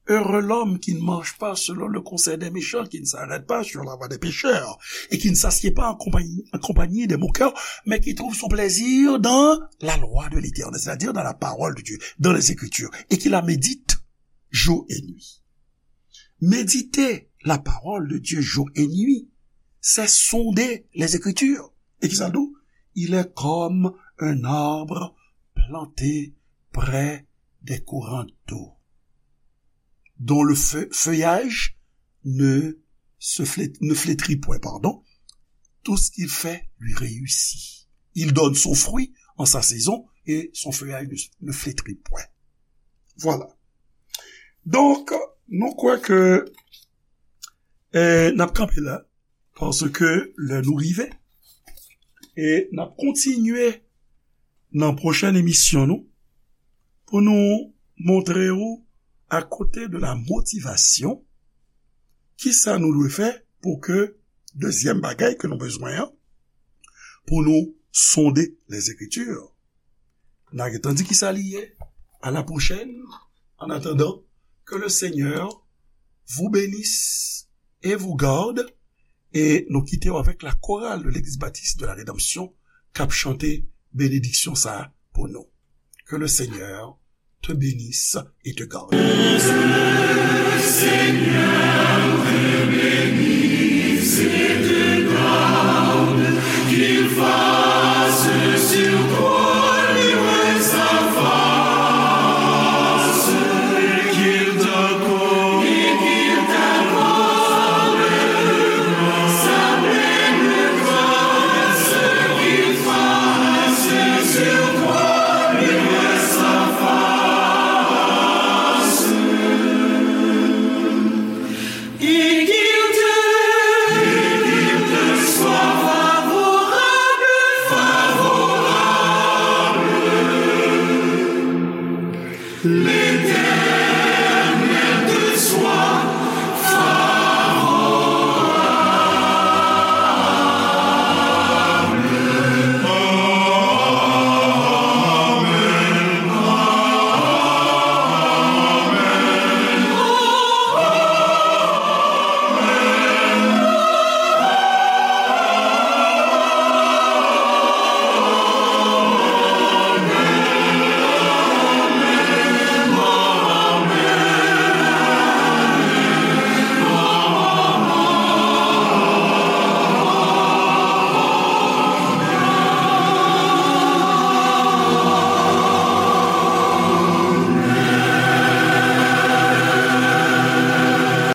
Heureux l'homme qui ne marche pas selon le conseil des méchants, qui ne s'arrête pas sur la voie des pécheurs, et qui ne s'assied pas en compagnie, en compagnie des moqueurs, mais qui trouve son plaisir dans la loi de l'Éternel, c'est-à-dire dans la parole de Dieu, dans les Écritures, et qui la médite jour et nuit. Méditer la parole de Dieu jour et nuit, c'est sonder les Écritures. Et qui ça dit? Il est comme un arbre planté près des courants d'eau, dont le feu- feuillage ne se flé- ne flétrit point, pardon. Tout ce qu'il fait lui réussit. Il donne son fruit en sa saison et son feuillage ne, ne flétrit point. Voilà. Donk, nou kwè ke, eh, n ap kanpe la, paske lè nou rive, e n ap kontinye nan pwochèn emisyon nou, pou nou montre w, akote de la motivasyon, kisa nou dwe fè pou ke, dezyèm bagay ke nou bezwen an, pou nou sonde les Écritures. N a gentan di kisa li ye. À la prochaine. En attendant, que le Seigneur vous bénisse et vous garde. E nou kite w avèk la chorale de l'Église Baptiste de la Rédemption k ap chante benediksyon sa a pou nou. Que le Seigneur te bénisse et te garde.